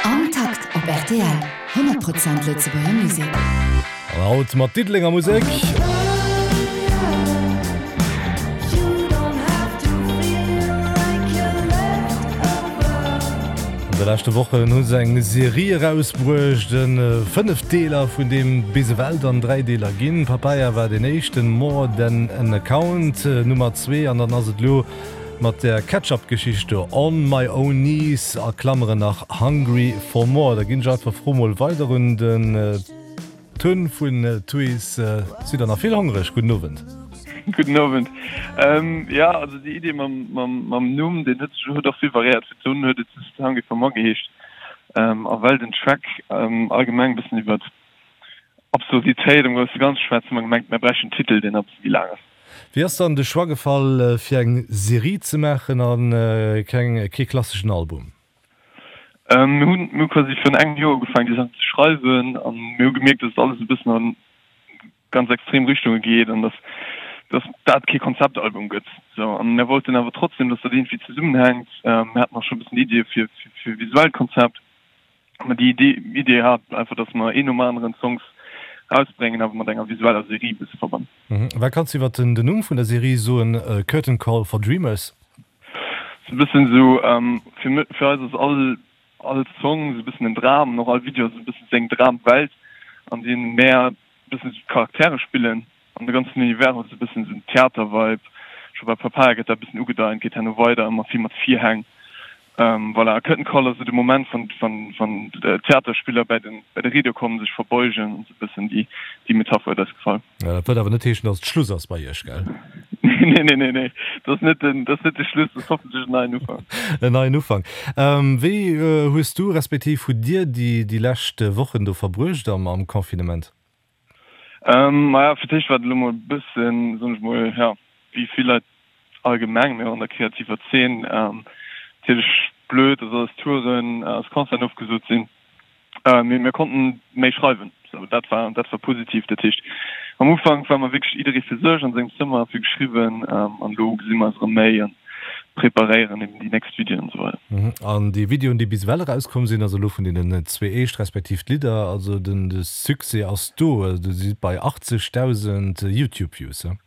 Am Takt op rtl, 100 Prozent Lëtzebuerger Musek. An haut mat Diddelenger Musek. An de leschte Wochen hu se eng Serie erausbruecht, e 5 Deeler, vun deem bis ewell dann 3 Deeler ginn. Papaya war deen éischten, More Than An Account Nummer 2 an dann ass et elo Mat der Ketchup-Geschicht do, On my own knees, a Klammeren nach Hungry for more. Da ginn ech einfach d'Fro mol weider un den Tun vun Tuys. Sidd der nach vill hongreg? Gudden Owend. Gudden Owend. Jo, also déi Idee mam Numm, deen huet sech huet och vill variéiert. Fir d'Tun huet et just Hungry for more geheescht. A well den Track allgemeng e bëssen iwwert Absurditéit am grousse Ganze schwätzt, hu mer gemengt, mer bräichten en Titel, deen e bësse méi laang ass. Wéi ass dann de Choix gefall fir eng Serie ze maachen a keng kee klasseschen Album? Mir hunn mir hu quasi virun engem Joer ugefaangen déi Saachen ze schreiwen an mir hu gemierkt, dass et alles e bëssen an ganz extrem Richtunge geet an dass dass dat kee Konzeptalbum gëtt. Sou an mir wollten awer trotzdem, dass dat iergendwéi zesummenhänkt. Mir haten och scho e bëssen Iddie fir fir e visuellt Konzept. Mä déi Idee, Idee hat einfach, dass mer een nom aneren d'Songs rausbréngen, awer mat enger visueller Serie e bësse verbannen. Wat kanns du iwwer den Numm vun der Serie soen, Curtain Call for Dreamers? Sou e bëssen esou, fir, fir eis ass all, all Song esou e bëssen en Dram an och all Video ass esou e bëssen seng Dramwelt, an deem mär e bëssen esou d'Charaktere spillen. An de ganzen Univers huet esou e bëssen esou en Theater-Vibe. Scho bei Papaya gëtt dat e bëssen ugedeint, geet herno weider, ëmmer vill mat Virhäng. Voilà, a Curtain Call ass esou de Moment, wann, wann, wann d'Theaterspiller bäi den, bäi de Rideau kommen, sech verbeugen an esou e bëssen déi, déi Metapher huet eis gefall. Ja, dat wëllt awer net heeschen, datt et Schluss ass bei iech, gell? Nee, nee, nee, nee, dat ass net den, dat ass net de Schluss, dat ass hoffentlech en neien Ufank. En neien Ufank. Wéi hues du, respektiv hutt dir déi, déi lescht Wochen do verbruecht am, am Confinement? Maja, fir d'éischt war et elo mol e bëssen, soen ech mol, jo, wéi vill Leit allgemeng, mee och an der kreativer Zeen, natierlech blöd, dass alles Touren, alles Concerten ofgesot sinn. Mee mir konnten méi schreiwen, sou dat war, dat war positiv. Dat heescht, am Ufank war mer wierklech jidderee fir sech an sengem Zëmmer a vill geschriwwen an elo gesi mer eis erëm méi an preparéieren eben déi nächst Videoen an esou weider. An déi Videoen, déi bis ewell erauskomm sinn, also elo vun deenen zwee éischt respektiv d'Lidder, also den de Succès ass do, du sidd bei 80.000 Youtube Views, he?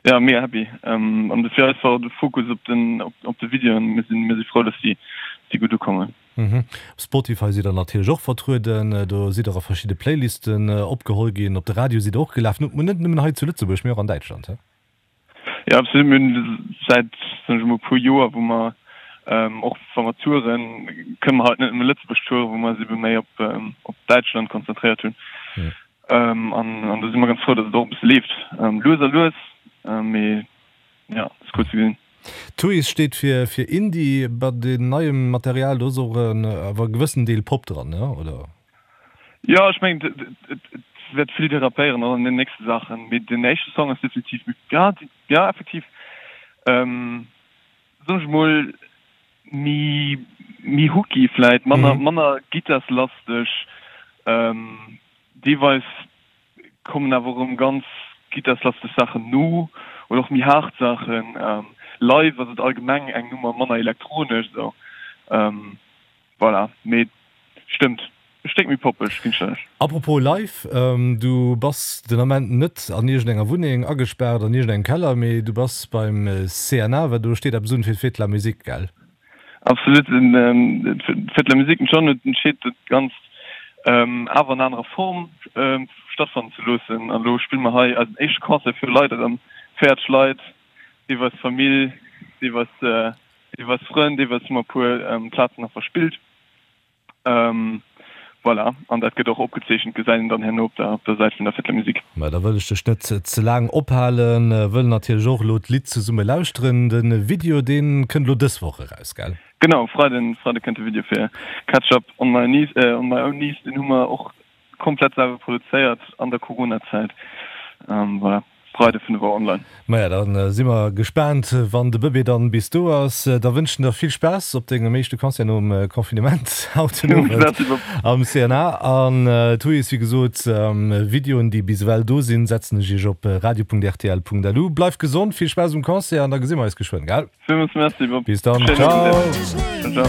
Ja, mega happy. An de fir eis war och de Fokus op den op de Videoen. Mir sinn mir si frou, dass déi dass déi gutt ukommen. Op Spotify sidd der natierlech och vertrueden, do sidd der a verschidde Playlisten opgeholl ginn, op de Radio sidd der och gelaf, net nëmmen hei zu Lëtzebuerg, mee och an Däitschland, he? Jo, absolut. Mir hunn säit, soen ech emol, e puer Joer, wou mer och wa mer touren, kënne mer halt net nëmme Lëtzebuerg touren, wou mer eis ebe méi op op Däitschland konzentréiert hunn. An an do si mer ganz frou, datt et och e bësse leeft. Lues a lues, mee jo, et ass cool ze gesinn. Tuys steet fir fir Indie. Bei deem neiem Material, do ass och awer e gewëssen Deel Pop dran, ne, oder? Jo, ech mengen, et wäert vill derapéieren och an den nächste Saachen, mee den éischte Song ass definitiv méi, ja, ja, effektiv, soen ech mol, méi, méi hooky vläit, manner, manner gittarslasteg. Deelweis kommen awer och erëm ganz gittarslasteg Saachen no oder och méi haart Saachen. Live ass et allgemeng eng Nummer manner elektronesch, esou. Voilà, mee stëmmt, e Stéck méi poppeg, ginn ech der Recht. Apropos live, du bass den Ament net an iergendeng Wunneng agespaart, an iergendengem Keller, mee du bass beim CNA, well do steet eppes un fir d'Fête de la Musique, gell? Absolut, d'Fête de la Musique, den John huet entscheet dat Ganzt awer an anerer Form stattfannen ze loossen an elo spille mer hei eisen éischte Concert fir Leit erëm, 40 Leit, deelweis Famill, deelweis Deelweis Frënn, deelweis hu mer e puer Plazen nach verspillt. Voilà, an dat gëtt och opgezeechent, gesäit een dann herno op der op der Säit vun der Fête de la Musique. Mä da wëll ech dech net ze laang ophalen, wëll natierlech och elo d'Lidd zesumme lauschteren. De Video, dee kënnt elo dës Woch eraus, gell? Genau, Freiden, Freide kënnt de Video fir Catch Up on my knees, on my own knees. Deen hu mer och Komplett selwer produzéiert an der Corona-Zäit. Voilà, Freide 5 Auer online. Maja, da si mer gespaant, wann de Bëbee dann bis do ass. Da wënschen der vill Spaass op dengem éischte Concert nom Confinement haut den Owend am CNA. An d'Huis, wéi gesot, Videoen, déi bis ewell do sinn, setzen ech iech op radio.rtl.lu. Bleift gesond, vill Spaass um Concert an da gesi mer eis geschwënn, gell? Villmools Merci, Bob. Bis dann, ciao! Ciao, ciao.